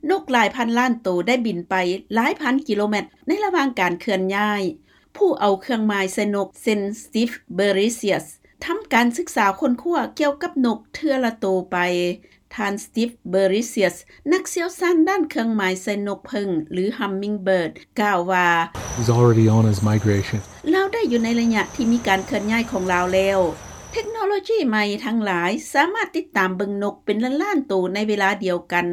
ນົກຫຼາຍພັນລ້ານໂຕໄດ້ບິນໄປຫຼາຍພັນກິໂລແມັດໃນລະຫວ່າງການເຄື່ອນຍ້າຍ. ຜູ້ເອົາເຄື່ອງໝາຍໃສ່ນົກ ເຊັ່ນ Steve Berecius ທຳການສຶກສາຄົ້ນຄວ້າກ່ຽວກັບນົກເທື່ອລະໂຕໄປ. ທ່ານ Steve Berecius ນັກຊ່ຽວຊານດ້ານເຄື່ອງໝາຍໃສ່ນົກເຜິ້ງ ຫຼື Hummingbird ກ່າວວ່າ He's already on his migration. ລາວໄດ້ຢູ່ໃນໄລຍະທີ່ມີການເຄື່ອນຍ້າຍຂອງລາວແລ້ວ. ເທັກໂນໂລຈີໃໝ່ທັງຫຼາຍສາມາດຕິດຕາມເບິ່ງນົກເປັນລ້ານໆໂຕໃນເວລາດຽວກັນ.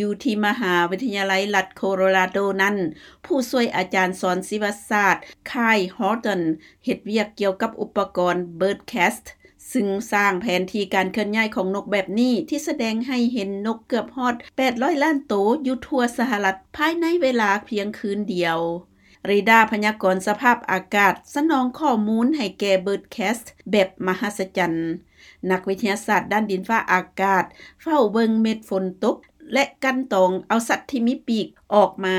ຢູ່ທີ່ມະຫາວິທະຍາໄລລັດໂຄໂລຣາໂດນັ້ນ, ຜູ້ຊ່ວຍອາຈານສອນຊີວະສາດ Kyle Horton ເຮັດວຽກກ່ຽວກັບອຸປະກອນ BirdCast ຊຶ່ງສ້າງແຜນທີ່ການເຄື່ອນຍ້າຍຂອງນົກແບບນີ້ ທີ່ສະແດງໃຫ້ເຫັນນົກເກືອບຮອດແປດຮ້ອຍລ້ານໂຕຢູ່ທົ່ວສະຫະລັດ ພາຍໃນເວລາພຽງຄືນດຽວ. ເຣດ້າພະຍາກອນສະພາບອາກາດສະໜອງຂໍ້ມູນໃຫ້ແກ່ BirdCast ແບບມະຫັດສະຈັນ. ນັກວິທະຍາສາດດ້ານດິນຟ້າອາກາດເຝົ້າເບິ່ງເມັດຝົນຕົກ ແລະ ກັ່ນຕອງເອົາສັດທີ່ມີປີກອອກມາ.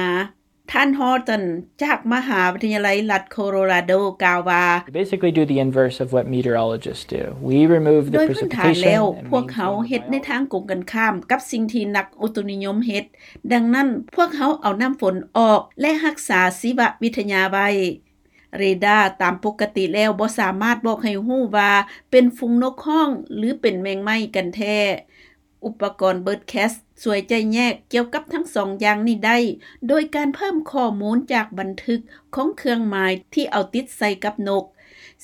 ທ່ານ Horton ຈາກມະຫາວິທະຍາໄລລັດໂຄໂລຣາໂດ ກ່າວວ່າ We basically do the inverse of what meteorologists do. We remove the precipitation and maintain the biology. ໂດຍພື້ນຖານແລ້ວ, ພວກເຮົາເຮັດໃນທາງກົງກັນຂ້າມກັບສິ່ງທີ່ນັກອຸຕຸນິຍົມເຮັດ. ດັ່ງນັ້ນ, ພວກເຮົາເອົານ້ຳຝົນອອກ ແລະ ຮັກສາຊີວະວິທະຍາໄວ້. ເຣດ້າຕາມປົກກະຕິແລ້ວບໍ່ສາມາດບອກໃຫ້ຮູ້ວ່າເປັນຝູງນົກຮ້ອງ ຫຼື ເປັນແມງໄມ້ກັນແທ້. ອຸປະກອນ BirdCast ຊ່ວຍຈະແຍກກ່ຽວກັບທັງສອງຢ່າງນີ້ໄດ້ ໂດຍການເພີ່ມຂໍ້ມູນຈາກບັນທຶກຂອງເຄື່ອງໝາຍທີ່ເອົາຕິດໃສ່ກັບນົກ,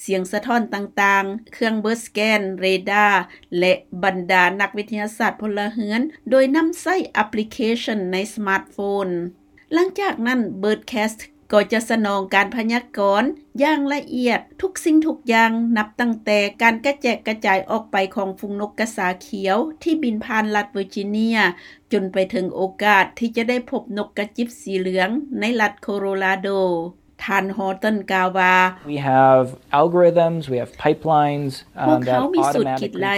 ສຽງສະທ້ອນຕ່າງໆ, ເຄື່ອງ Bird Scan, ເຣດ້າ ແລະ ບັນດານັກວິທະຍາສາດພົນລະເຮືອນ ໂດຍນຳໃຊ້ແອັບພລິເຄຊັນໃນສະມາດໂຟນ. ຫຼັງຈາກນັ້ນ, BirdCast ກໍຈະສະໜອງການພະຍາກອນຢ່າງລະອຽດທຸກສິ່ງທຸກຢ່າງ, ນັບຕັ້ງແຕ່ການກະແຈກກະຈາຍອອກໄປຂອງຝູງນົກກະສາຂຽວທີ່ບິນຜ່ານລັດເວີຈິເນຍ ຈົນໄປເຖິງໂອກາດທີ່ຈະໄດ້ພົບນົກກະຈິບສີເຫຼືອງໃນລັດໂຄໂລຣາໂດ. ທ່ານ Horton ກ່າວວ່າ We have algorithms, we have pipelines, um, that automatically create forecast ພວກເຮົາມີສູດຄິດໄລ່,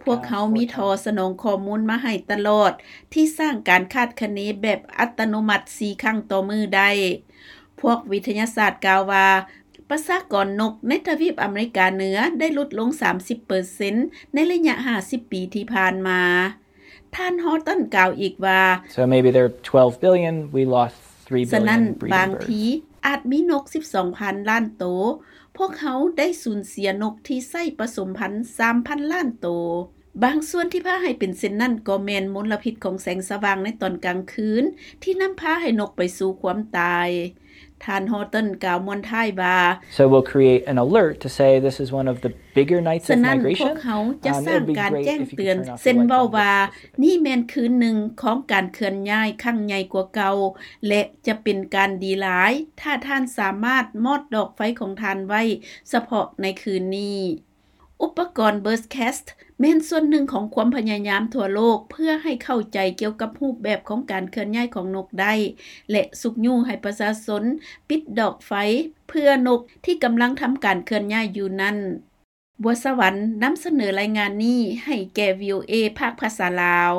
ພວກເຮົາມີທໍ່ສະໜອງຂໍ້ມູນມາໃຫ້ຕະຫຼອດ ທີ່ສ້າງການຄາດຄະເນແບບອັດຕະໂນມັດສີ່ຄັ້ງຕໍ່ມື້ໄດ້. ພວກວິທະຍາສາດກ່າວວ່າ ປະຊາກອນນົກໃນທະວີບອາເມລິກາເໜືອໄດ້ຫຼຸດລົງສາມສິບເປີເຊັນໃນໄລຍະຫ້າສິບປີທີ່ຜ່ານມາ. ທ່ານ Horton ກ່າວອີກວ່າ So maybe there are twelve billion, we lost three billion breeding birds. ສະນັ້ນ, ບາງທີອາດມີນົກສິບສອງພັນລ້ານໂຕ, ພວກເຮົາໄດ້ສູນເສຍນົກທີ່ໃຊ້ປະສົມພັນສາມພັນລ້ານໂຕ. ບາງສ່ວນທີ່ພາໃຫ້ເປັນເຊັ່ນນັ້ນກໍແມ່ນມົນລະພິດຂອງແສງສະຫວ່າງໃນຕອນກາງຄືນ ທີ່ນຳພາໃຫ້ນົກໄປສູ່ຄວາມຕາຍ. ທ່ານ Horton ກ່າວມ້ວນທ້າຍວ່າ So we'll create an alert to say this is one of the bigger nights of migration. ສະນັ້ນ, ພວກເຮົາຈະສ້າງການແຈ້ງເຕືອນ, ເຊັ່ນເວົ້າວ່າ ນີ້ແມ່ນຄືນໜຶ່ງຂອງການເຄື່ອນຍ້າຍຄັ້ງໃຫຍ່ກວ່າເກົ່າ ແລະ ຈະເປັນການດີຫຼາຍ ຖ້າທ່ານສາມາດມອດດອກໄຟຂອງທ່ານໄວ້ສະເພາະໃນຄືນນີ້. ອຸປະກອນ BirdCast ແມ່ນສ່ວນໜຶ່ງຂອງຄວາມພະຍາຍາມທົ່ວໂລກ ເພື່ອໃຫ້ເຂົ້າໃຈກ່ຽວກັບຮູບແບບຂອງການເຄື່ອນຍ້າຍຂອງນົກໄດ້ ແລະ ຊຸກຍູ້ໃຫ້ປະຊາຊົນປິດດອກໄຟເພື່ອນົກທີ່ກຳລັງທຳການເຄື່ອນຍ້າຍຢູ່ນັ້ນ. ບົວສະຫວັນນຳສະເໜີລາຍງານນີ້ໃຫ້ແກ່ VOA ພາກພາສາລາວ.